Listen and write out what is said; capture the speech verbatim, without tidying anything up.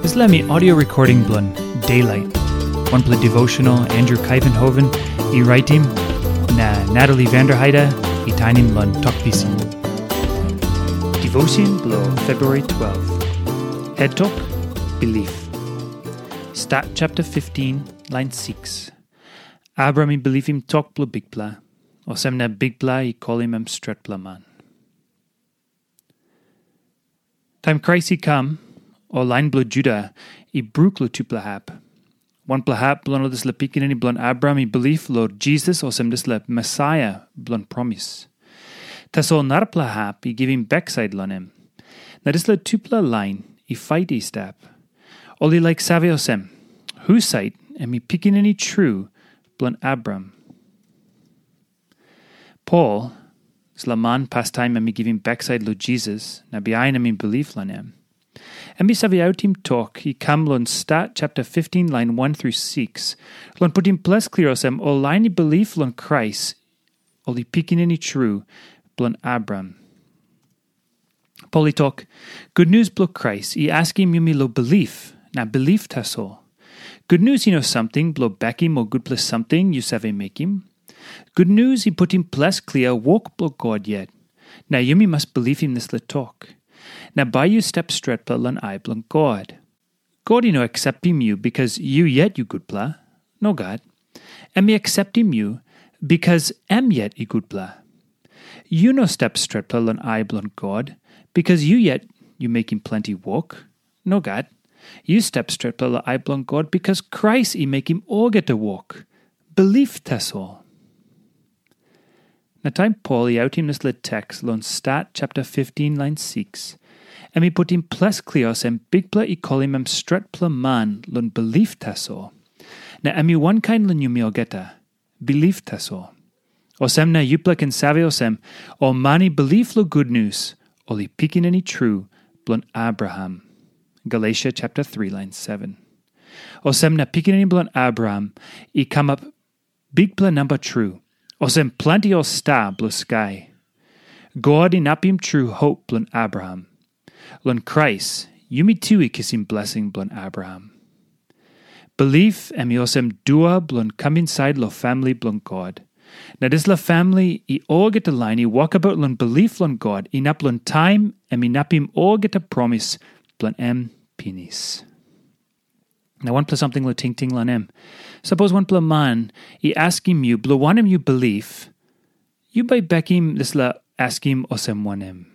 Dispela mi audio recording bilong Daylight, wanpela devotional Andrew Kaivenhoven i raitim, na Natalie Vanderheide i tainim long Tok Pisin. Devotion bilong February twelve. Head Tok, Belief. Stat chapter fifteen, line six. Abraham i bilipim tok bilong Bikpela, olsem na Bikpela i kolim em stretpela man. Taim Krais i kam, ol lain bilong Juda i bruk long tupela hap. Wanpela hap bilong ol dispela pikinini bilong Abraham i bilip long Jisas olsem dispela Mesaia bilong promis. Tasol narapela hap i givim baksait long em. Na dispela tupela lain i fait i stap. Ol i laik save olsem, husat em i pikinini tru bilong Abraham? Pol, dispela man pastaim em i givim baksait long Jisas, na bihain em i bilip long em. Em i save autim tok i kam long Stat chapter fifteen, lain one through six, long putim ples klia olsem ol lain i bilip long Krais, ol i pikinini tru bilong Abraham. Pol i tok, gutnius bilong Krais i askim yumi long bilip, na bilip tasol. Gutnius i no samting bilong bekim ol gutpela samting yu save mekim. Gutnius i putim ples klia wok bilong God yet, na yumi mas bilipim dispela tok. Na bai yu stap stretpela long ai bilong God. God i no akseptim yu bikas yu yet yu gutpela. Nogat. Em i akseptim yu bikas em yet i gutpela. Yu no stap stretpela long ai bilong God bikas yu yet yu mekim planti wok. Nogat. Yu stap stretpela long ai bilong God bikas Krais i mekim olgeta wok. Bilip tasol. Na taim Pol i autim dispela teks long Stat chapter fifteen, lain six, em i putim ples klia olsem Bikpela i kolim em stretpela man long bilip tasol. Na em i wankain long yumi olgeta, bilip tasol. Olsem na yupela ken save olsem, ol man i bilip long gutnius, ol i pikinini tru bilong Abraham. Galesia chapter three, lain seven. Olsem na pikinini bilong Abraham i kamap bikpela namba tru, olsem planti ol sta bilong skai. God inapim tru hop bilong Abraham. Long Krais, yumi tu i kisim blesing bilong Abraham. Bilip em i olsem dua bilong kam insait long famili bilong God. Na dispela famili i olgeta lain i wokabaut long bilip long God inap long taim em inapim olgeta promis bilong em pinis. Na wanpela samting long tingting long em. Sapos wanpela man i askim yu bilong wanem yu bilip, yu bai bekim dispela askim olsem wanem?